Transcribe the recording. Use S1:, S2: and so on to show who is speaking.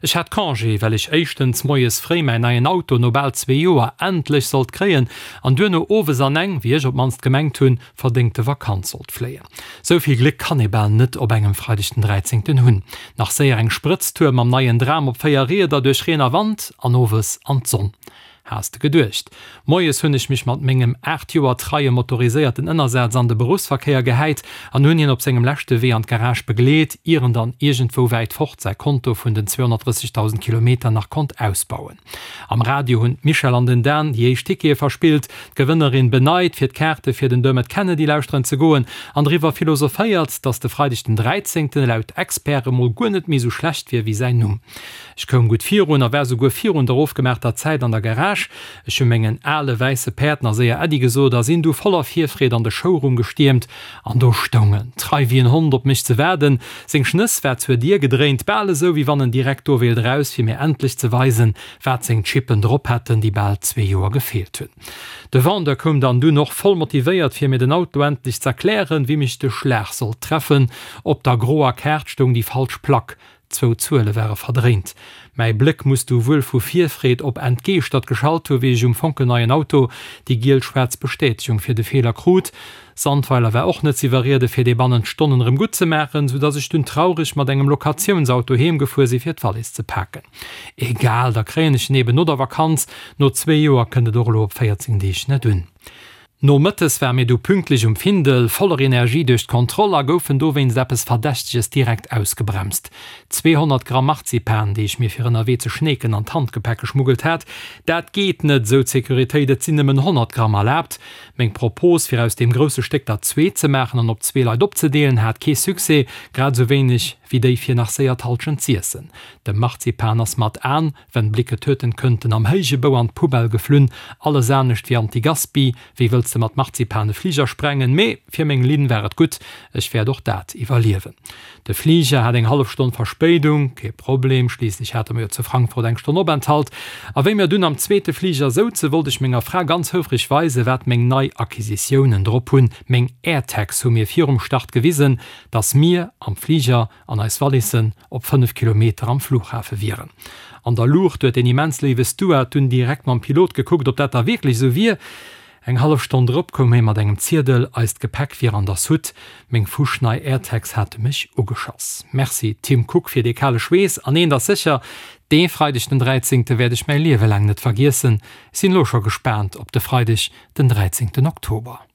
S1: Ech hat Congé, well ech éischtens moies fréi mäin neien Auto no bal zwee Joer endlech sollt kréien an duerno owes an eng, wéi ech op d'mannst gemengt hunn, verdéngte Vakanz sollt fléien. Sou vill Gléck kann ee bal net op engem Freideg den 13. hunn. Nach séier eng Sprëtztour mam neien Dram op 4 Rieder duerch Reen a Wand an owes an d'Sonn. Has de geduecht. Moies hunn ech mech mat mengem 8 Joer treie motoriséierten Ënnersaz an de Beruffsverkéier gehäit an hunn hien op sengem leschte Wee an d'Garage begleet, ier en dann iergendwou wäit fort säi Konto vun den 230.000 Kilometer nach konnt ausbauen. Am Radio hunn d'Michèle an den Dan déi éischt Tickete verspillt, d'Gewënnerin beneit, fir d'Kaarte fir den Dermot Kennedy lauschteren ze goen an driwwer philosophéiert, dass de Freideg den 13. Laut Experte mol guer net méi sou schlecht wier wéi säin Numm. Ech koum gutt virun a war souguer virun der ofgemaachter Zäit an der Garage. Ech hu mengen ale wäisse Päerd nach séier Äddi gesot a sinn du voller Virfreed an de Showroom gestiermt. An do stoung en, trei wéi en Hond op mech ze waarden. Seng Schnëss war zur Dier gedréint, bal esou wéi wann en direkt do wéilt eraus, fir mir endlech ze weisen, wat seng Chippen drop hätten, déi bal zwee Joer gefeelt hunn. De Vendeur koum dann dunn och voll motivéiert, fir mir den Auto endlech z'erklären, wéi mech de Schlag sollt treffen. Op der groer Kaart stoung déi falsch Plack. Zwou Zuele ware verdréint. Mäi Bléck muss du wuel vu Virfreed op entgeeschtert geschalt hu wéi ech um fonkelneien Auto déi giel-schwaarz Bestätegung fir de Feeler krut. Sandweiler war och net z'iwwerriede fir dee bannent Stonnen erëm gutt ze maachen, sou dass ech dunn traureg mat engem Locatiounsauto heem gefuer si fir d'Wallis ze paken. Egal, da kréien ech en eben no der Vakanz. No zwee Joer kënnt et och elo op 14 Deeg net un. Nomëttes ware mir du pünktlech um Findel, voller Energie duerch d'Kontroll a goufen dowéinst eppes Verdächteges direkt ausgebremst. 200 Gramm Marzipan, déi ech mir fir ënnerwee ze schneeken an d'Handgepäck geschmuggelt hat. Dat geet net, sou d'Securitéit, et sinn nëmmen 100 Gramm erlaabt. Meng Propos, fir aus deem grousse Stéck der zwee ze maachen an op zwee Leit opzedeelen, hat kee Succès, grad esou wéineg wéi déi fir nach séier d'Halschent z'iessen. De Marzipan ass mat An Wenn Blicke töten könnten, am héije Bou an d'Poubelle geflunn, alles anescht wéi Anti-Gaspi, wéi wëlls de mat Marzipan e Fliger sprengen? Mee fir meng Linn war et gutt, ech wäert och dat iwwerliewen. De Fliger hat eng hallef Stonn Verspéidung, kee Problem, schliisslech hate mer jo zu Frankfurt eng Stonn Openthalt. A wéi mir dunn am zweete Fliger souze wollt ech menger Fra ganz houfreg weisen, wat meng nei Acquisitiounen drop hunn, meng AirTags hu mir virum Start gewisen, dass mir am Fliger an eis Wallissen op 5 Kilometer am Flughafe wieren. An der Luucht huet deen immens léiwe Steward dunn direkt mam Pilot gekuckt, ob dat da wierklech esou wier. Eng hallef Stonn drop koum hie mat engem Ziedel, eist Gepäck wier an der Soute. Meng fuschnei AirTags hate mech ugeschoss. Merci Tim Cook fir dee kale Schweess. An eent ass sécher, dee Freideg den 13. Wäert ech mäi Liewe laang net vergiessen. Ech sinn elo scho gespaant op de Freideg den 13. Oktober.